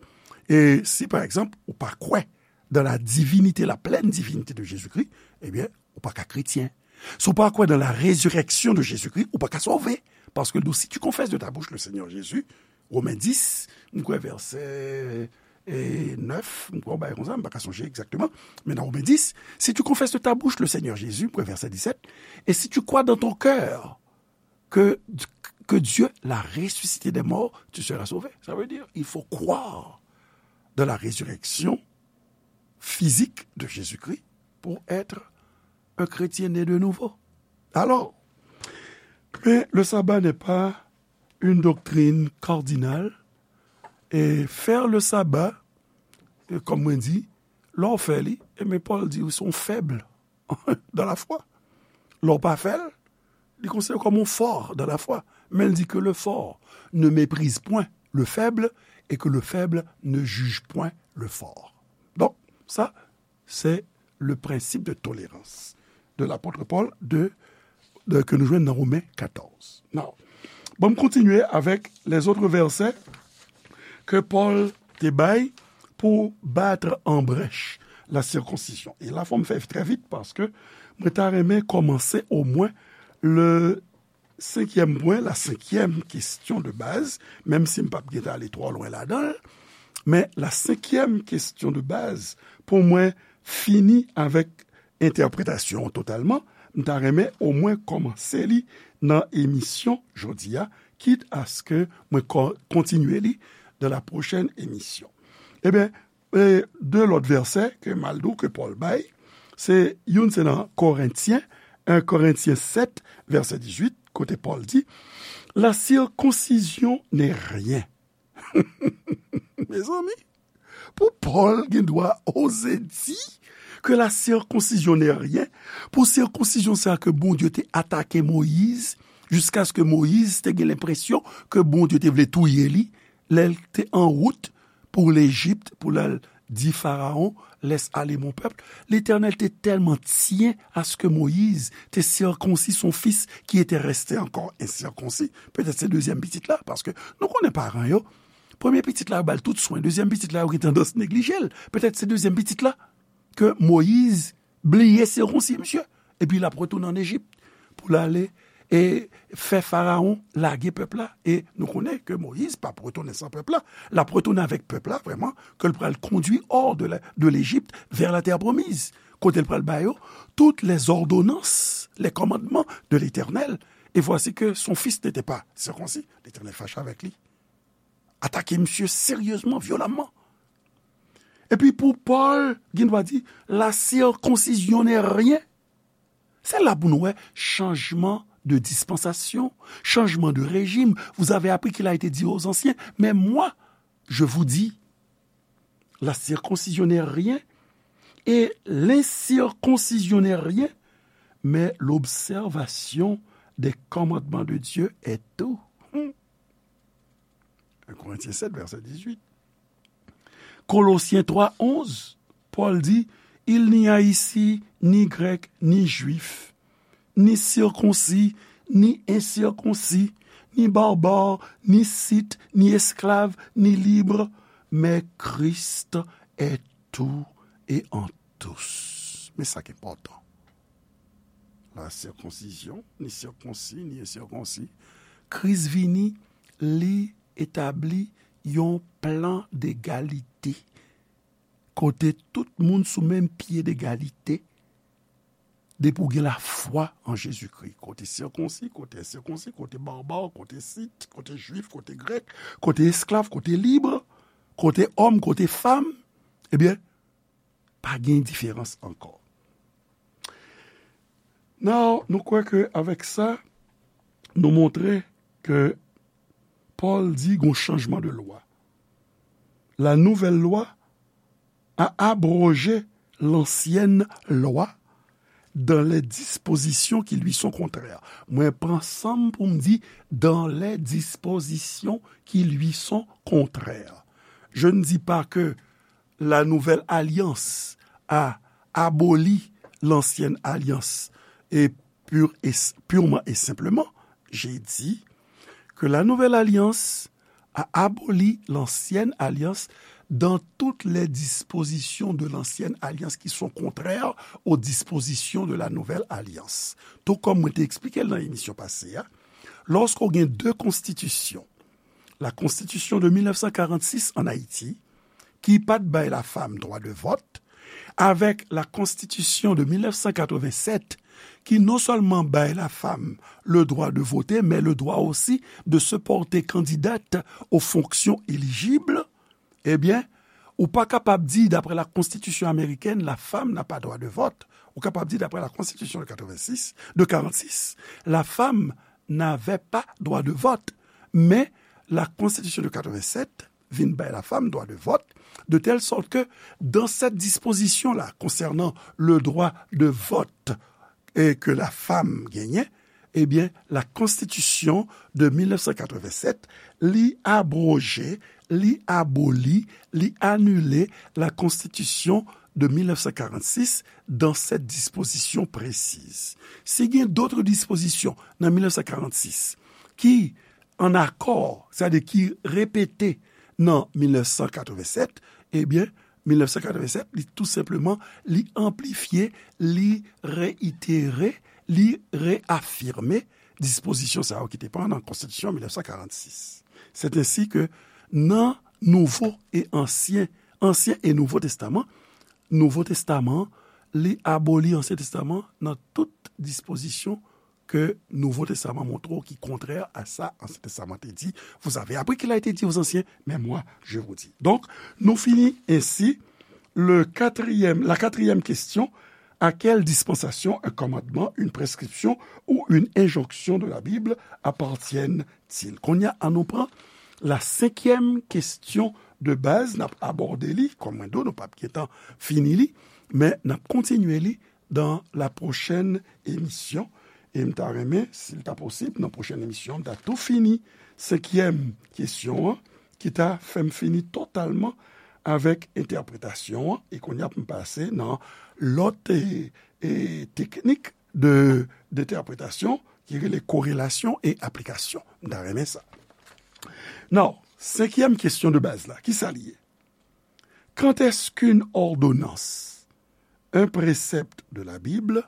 E si, pa egzanp, ou pa kwè dans la divinité, la pleine divinité de Jésus-Christ, ebyen, ou pa ka kretyen. Si w pa kwè dans la résurrection de Jésus-Christ, ou pa ka sove. Paske l di w, si tu confesses de ta bouche le Seigneur Jésus, Women dis, m kwè vèsè, e, nèf, m kwè w bay konsa, m pa ka sonje egzakteman, men nan Women dis, si tu confesses de ta bouche le Seigneur Jésus, m kwè vèsè disèt, et si tu crois dans ton cœur que, que Dieu l'a ressuscité des morts, tu seras sauvé. Ça veut dire, il faut croire dans la résurrection physique de Jésus-Christ pour être un chrétien né de nouveau. Alors, mais le sabbat n'est pas une doctrine cardinale. Et faire le sabbat, e, kòm mwen di, lè w fè li, e men Pòl di ou se yon fèb dans la foi. Lè w pa fè l, li konsidere w kòm yon fò dans la foi. Men l di que le fort ne méprise point le faible et que le faible ne juge point le fort. Donc, ça, c'est le principe de tolérance de l'apôtre Paul de, de, ke nou jwenn nan Women katòz. Now, bon, m kontinye avèk les autres versets ke Pòl te bay pou bat an brèch la circoncision. E la, fò m fè trè vit paske mwen ta renmen kòmanse omwen le senkyèm pwen, la senkyèm kesyon de baz, menm si m p ap gentan ale twò lwen ladan l, men la senkyèm kesyon de baz, pou mwen fini avèk entèpretasyon an totalman, m ta renmen omwen kòmanse li nan emisyon jodi a, kit aske mwen ko-, kontinye li dans la prochaine émission. Ebyen, e, de lòt vèsè ke m al di w ke Pòl bay, se youn se nan Korentyen, en Korentyen sèt, vèsè dizuit, kote Pòl di, La circoncision n'est rien. Mezanmi, pou Pòl gen dwa oze di ke la circoncision n'est rien, pou sirkonsizyon sa ke Bondye te atake Moyiz, jiskaske Moyiz te gen lenpresyon ke Bondye te vle touye li, lè l te an wout pou Lejip, pou l al Dis à Pharaon, laisse aller mon peuple. Letènèl te tèlman tyen aske Moyiz te sirkonsi son fis ki te reste ankò ensirkonsi. Petèt se dezyèm pitit la, paske nou konnen paran yo, premye pitit la, yo ba l tout swen. Dezyèm pitit la, yo gen tandans neglije l. Petèt se dezyèm pitit la ke Moyiz bliye sirkonsi misye. Epi l ap retounen ann Ejip pou l ale e fè Farawon lage pèp la. E nou konnen ke Moyiz p ap retounen san pèp la. L ap retounen avèk pèp la, vrèman, ke l pral kondui hors de la, de l'Égypte vers la terre promise, kote l pral ba yo toutes les ordonnances, les commandements de l'Éternel. Et voici que son fils n'était pas circoncis. Letènèl fache avèk li. Atake misye seryezman, vyolamman. Epi pou Pòl, gen dwa di, la circoncision n'est rien. Se la pou nou wè chanjman de dispensation, changement de régime. Vous avez appris qu'il a été dit aux anciens, mais moi, je vous dis, la circoncision n'est rien et l'incirconcision n'est rien, mais l'observation des commandements de Dieu est tout. Hmm. Un Corinthiens sept, verset dix-huit. Kolosyen twa onz, Pòl di, il n'y a ici ni grec, ni juif, ni circoncis, ni incirconcis, ni barbare, ni scythe, ni esclave, ni libre, mais Christ est tout et en tous. Men sa ki enpòtan. La circoncision, ni circoncis, ni incirconcis. Kris vini, li etabli yon plan d'égalité. Kote tout moun sou menm pye d'égalité. Depi w gen lafwa an Jezikri. Kote sirkonsi, kote ensirkonsi, kote barbare, kote scythe, kote jwif, kote grèk, kote esklav, kote libre, kote òm, kote fanm. Ebyen, pa gen diferans ankò. Now, nou kwè ke avèk sa, nou montre ke Pòl di gon chanjman de lwa. La nouvelle loi a abrogé l'ancienne loi dans les dispositions qui lui sont contraires. Mwen pran san m pou m di dans les dispositions qui lui sont contraires. Je ne dis pas que la nouvelle alliance a aboli l'ancienne alliance et pur et, purement et simplement, j'ai dit que la nouvelle alliance a aboli l'ancienne alliance dans toutes les dispositions de l'ancienne alliance qui sont contraires aux dispositions de la nouvelle alliance. Tou kòm mwen te eksplike l nan emisyon pase a, lòske w gen de konstitisyon, la konstitisyon de mil nèf san karannsis an Ayiti, ki pa t bay lafanm dwa de vòt, avèk la konstitisyon de mil nèf san katrevennsèt, ki non sèlman bay lafanm le droit de voter, mais le droit aussi de se porter candidate aux fonctions éligibles, ebyen, ou pa kapab di, daprè la konstitisyon amerikèn, la femme n'a pas droit de vote. Ou kapab di, daprè la konstitisyon de katrevensis, de karannsis, la femme n'avait pas droit de vote. Men, la konstitisyon de katrevennsèt vin bay lafanm dwa de vòt, de telle sorte que dans cette disposition-là, concernant le droit de vote, e ke lafanm genyen, ebyen, la konstitisyon de mil nèf san katrevennsèt, li abroje, li aboli, li anile la konstitisyon de mil nèf san karannsis dans cette disposition précise. Si gen dòt dispozisyon nan mil nèf san karannsis ki an akò, sètadi ki repete nan mil nèf san katrevennsèt, ebyen, mil nèf san katrevennsèt, li tou senpleman, li anplifye, li reyitere, li reyafime dispozisyon sa yo ki te pran nan konstitisyon mil nèf san karannsis. C'est ainsi que nan Nouvo e Ansyen, Ansyen e Nouvo Testaman, Nouvo Testaman, li aboli Ansyen Testaman nan tout dispozisyon ke Nouvo Testaman montre w ki kontrè a sa Ansyen Testaman te di. Vous avez appris qu'il a été dit aux anciens, mais moi, je vous dis. Donk, nou fini ensi le quatrième, la quatrième question, à quelle dispensation un commandement, une prescription ou une injonction de la Bible appartiennent-ils? Kounye a, ann nou pran la senkyèm kesyon de baz, n ap abòde li, kòm mwen di w, nou p ap gentan fini li, men n ap kontinye li dans la prochaine émission. E m ta renmen, si l ta posib, nan pwochèn emisyon, m ta tou fini senkyèm kesyon an, ki ta fè m fini totalman avèk entèpretasyon an, e kounye a pou m pase nan lòt e, e, teknik de, d'entèpretasyon ki rele korelasyon e aplikasyon. M ta renmen sa. Now, senkyèm kesyon de baz la, ki sa li ye? Quand est-ce qu'une ordonnance, un précepte de la Bible,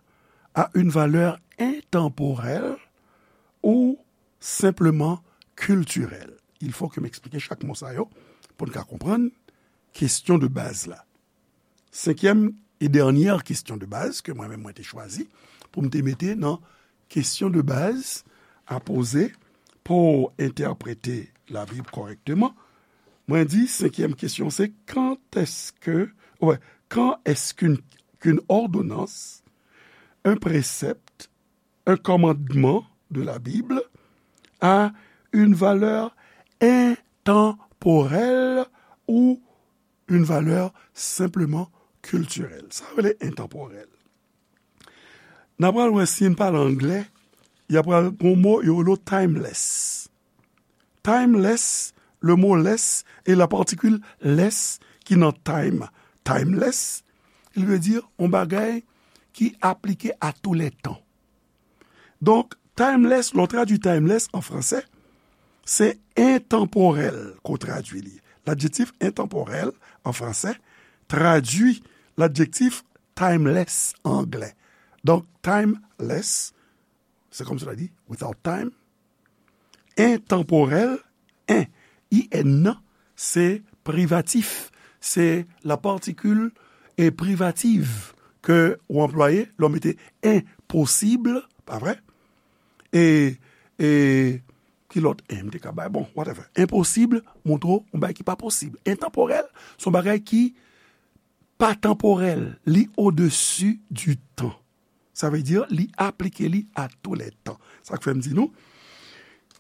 a une valeur intemporelle ou simplement culturelle? Il faut que m eksplike chak mo sa yo pou n ka konprann kesyon de baz la. Senkyèm e dènyè kesyon de baz ke mwen menm mwen te chwazi pou m te mete nan kesyon de baz a poze pou entèprete Labib kòrèkteman. Mwen di, senkyèm kesyon se, quand est-ce que, ouais, quand est-ce qu'une, qu'une ordonnance, un précepte, un commandement de la Bible a une valeur intemporelle ou une valeur simplement culturelle? Sa rele entanporèl. N a pral wè si n pale anglè, y a pral gon mo yo rele timeless. Timeless, le mot less e la particule less ki nan time. Timeless, il veut dire yon bagay ki aplike à tous les temps. Donk, timeless, lè w tradui timeless an fransè, se entanporèl ke w tradui li. Ladjektif entanporèl an fransè tradui ladjektif timeless an anglè. Donk, timeless, c'est comme cela dit, without time, entanporèl, en, I N nan, se privatif, se la particule e privative ke w anplwaye lè w mete enposib, pa vre? E, e, ki lòt en m te ka bay? Bon, whatever. Enposib montre w yon bagay ki pa posib. Entanporèl, se yon bagay ki pa tanporèl, li au-dessus du temps. Sa vle di, li aplike li à tous les temps. Sa k fè m di nou,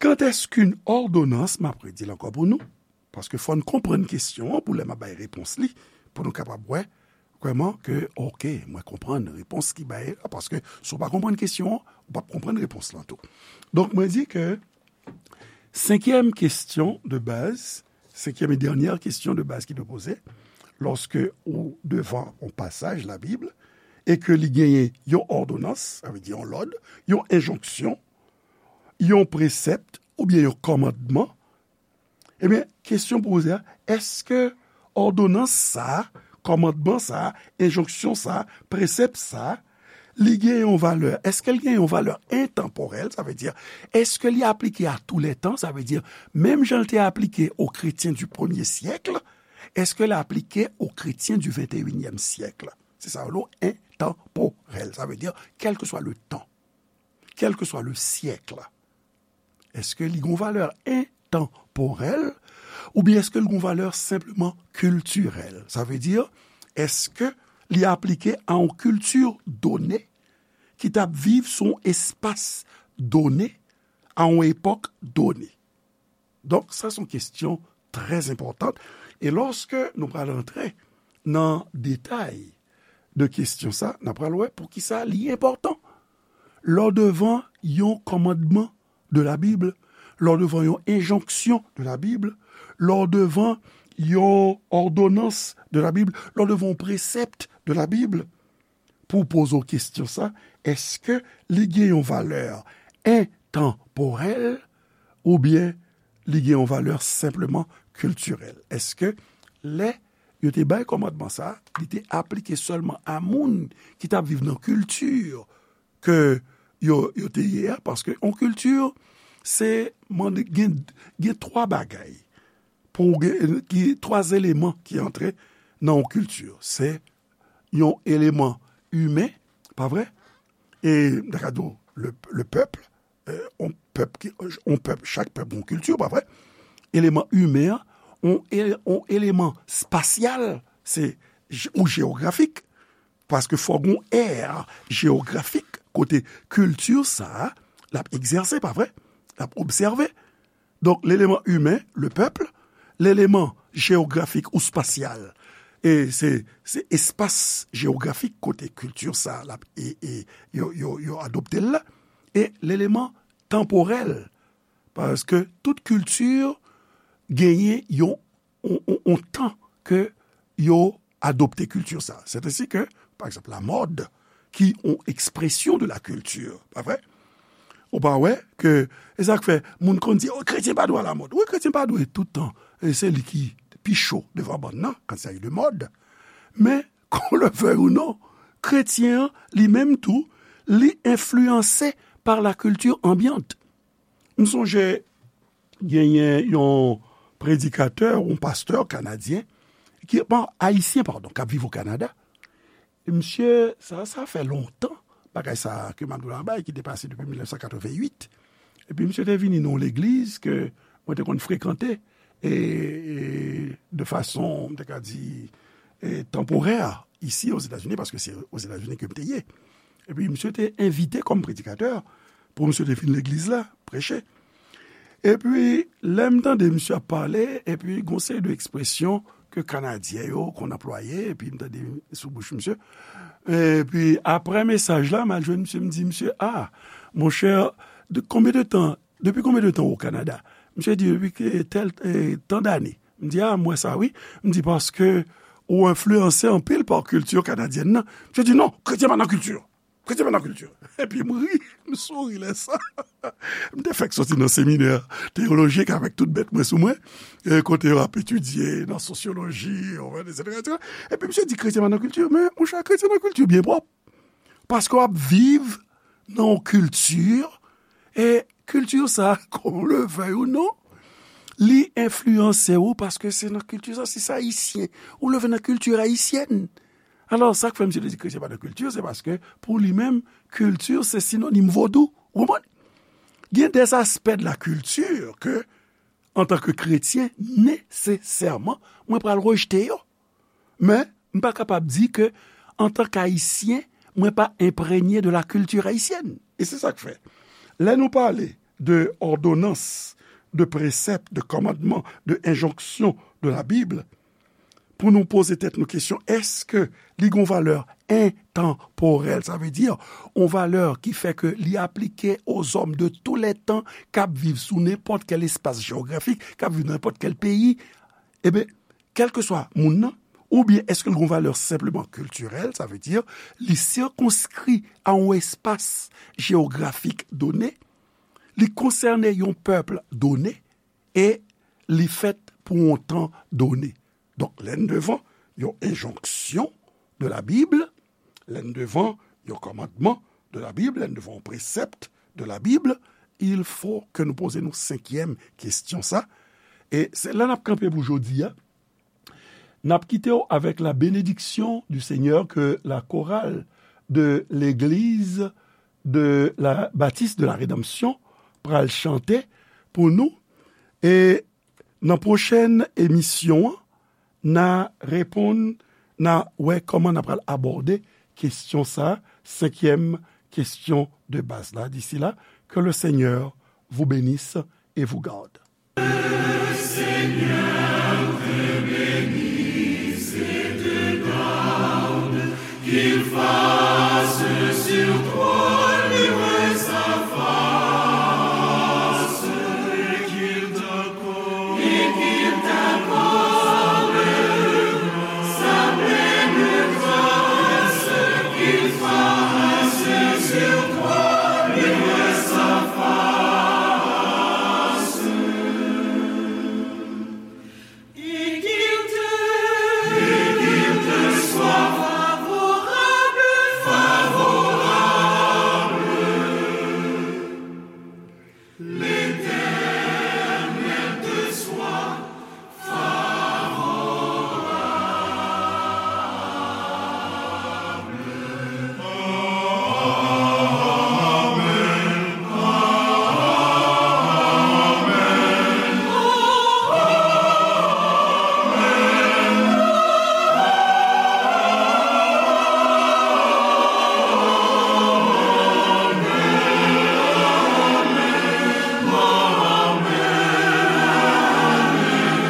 quand est-ce qu'une ordonnance, m ap redi l ankò pou nou, paske fò n konprann kesyon an pou lè m ap bay repons li, pou nou kapab wè vrèman ke, oke, mwen konprann repons ki bay la, paske si w pa konprann kesyon an, ou p ap konprann repons lan tou. Donk, mwen di ke senkyèm kesyon de baz, senkyèm e dènyè kesyon de baz ki dwe poze, lòske ou devan yon pasaj Labib, e ke li genyen yon òdonans, sa vle di yon lòd, yon enjonksyon, yon presèp, oubyen yon kòmandman, ebyen, kesyon pou poze a, èske òdonans sa a, kòmandman sa a, enjonksyon sa a, presèp sa a, li gen yon valè? Èske l gen yon valè entanporèl? Sa vle di, èske li aplike à tous les temps? Sa vle di, menm jan l te aplike aux chrétiens du premier siècle, èske l aplike aux chrétiens du vingt et unième siècle? Se sa yo rele entanporèl. Sa vle di, quel que soit le temps, quel que soit le siècle. Èske li gen yon valè entanporèl oubyen èske li gen yon valè senpleman kiltirèl? Sa vle di, èske li aplike a yon kilti done ki t ap viv sou yon espas done, a yon epòk done? Donk, sa se yon kesyon trè enpòtan. E lòske nou pral antre nan detay de kesyon sa, n ap pral wè poukisa li enpòtan. Lè w devan yon kòmandman de Labib, lè w devan yon enjonksyon de Labib, lè w devan yon òdonans de Labib, lè w devan yon presèp de Labib, pou w poze w kesyon sa, èske li gen yon valè entanporèl oubyen li gen yon valè senpleman kiltirèl? Èske lè yo te bay kòmandman sa, li te aplike sèlman a moun ki t ap viv nan kilti ke yo, yo te ye a? Paske yon kilti, se mande, gen, gen twa bagay pou gen, ki, twa eleman ki antre nan yon kilti. Se yon eleman imen, pa vre? E, m ta ka di w, le, le pèp, euh, yon pèp ki, yon pèp, chak pèp yon kilti, pa vre? Eleman imen an, yon ele-, yon eleman espasyal, se je-, ou jewografik, paske fò gen yon è jewografik kote kilti sa a, l ap egzèse, pa vre? L ap obsève. Donk, leleman imen, le pèp, leleman jewografik ou espasyal, e se, se espas jewografik kote kilti sa a, l ap, e, e, yo, yo, yo adopte l la, e leleman tanporèl, paske tout kilti genyen yon, yon, yon, yon tan ke yo adopte kilti sa. C'est ainsi que, par exemple, la mode, qui ont expression de la culture, pa vre? Ou pa wè ke, e sa k fè, moun konn di, oh, kretyen pa dwe alamòd. Wi, kretyen pa dwe tout tan, e se li ki pi cho devan bann nan, quand il s'agit de mode. Men, qu'on le veuille ou non, kretyen an, li menm tou, li enfliyanse par la culture ambiante. M sonje, genyen yon predikatè, yon pastè kanadyen, ki, bon, ayisyen, padon, k ap viv o Kanada. E misye, sa, sa fè lontan, bagay sa ke m ap di w la bay, ki te pase depi mil nèf san katreven uit. Epi misye te vini nan yon legliz ke mwen te konn frekante, e, e de fason, m te ka di, e, tanporè, isi Ozetazini, paske se Ozetazini ke m te ye. Epi misye te envite kòm predikatè pou misye te vin legliz la, preche. Epi, lè m tande misye ap pale, epi gon seri de ekspresyon ke Kanadyen yo konn anplwaye, epi m tande sou bouch misye. Epi, apre mesaj la, m al jwenn misye, m di, misye, ah, monchè, de, konbyen de tan, depi konbyen de tan ou o Kanada? Misye di, depi ke tèl, eh, tan dane. M di, ah, m wè sa, wi. M di, paske ou enfliyanse anpil pa kilti kanadyèn nan. Misye di, non, kretyen pa nan kilti. Kretyen pa nan kilti. Epi m ri, m souri lè sa. M te fèk soti nan seminè teyolojik avèk tout bèt mwen sou mwen, e kote yo ap etidye nan sosyoloji, etsetera, etsetera. Epi misye di, kretyen pa nan kilti. Men, monchè, kretyen nan kilti byen pwòp. Paske w ap viv nan yon kilti, e kilti sa, qu'on le veuille ou non, li enfliyanse w paske se nan kilti sa, si se ayisyen, ou leve nan kilti ayisyèn. Alò, sa k fè misye te di kretyen pa nan kilti, se paske pou li menm, kilti se sinonim vodou. Ou konprann? Gen des aspects de la culture ke, antanke kretyen, nesesèman, mwen pral rejte yo. Men, m pa kapab di ke, antanke ayisyen, mwen pa enprenye de la culture haïtienne. E se sa k fè, lè nou pale de òdonans, de presèp, de kòmandman, de enjonksyon de la Bib, pou nou poze tèt nou kesyon, èske li gon valè entanporèl, sa vle di, yon valè ki fè ke li aplike aux hommes de tous les temps, k ap viv sou nenpòt kèl espas jewografik, k ap viv nan nenpòt kèl peyi, eben, kèlkeswa moun nan, oubyen èske l gon valè senpleman kiltirèl, sa vle di, li sikonskri a yon espas jewografik done, li konsène yon pèp done, e li fèt pou yon tan done. Donk, lè n devan yon enjonksyon de la Bib, lè n devan yon kòmandman de la Bib, lè n devan yon presèpt de la Bib, il faut que nou poze nou senkyèm kesyon sa. E se la n ap kanpe pou jodi a. N ap kite w avèk la bénédiction du Seigneur que la chorale de l'église de la Baptiste de la Rédemption pral chante pou nou. E nan pwochèn emisyon an, n a reponn, n a wè kòman n a pral abòde kesyon sa, senkyèm kesyon de baz la. D'ici là, que le Seigneur vous bénisse et vous garde.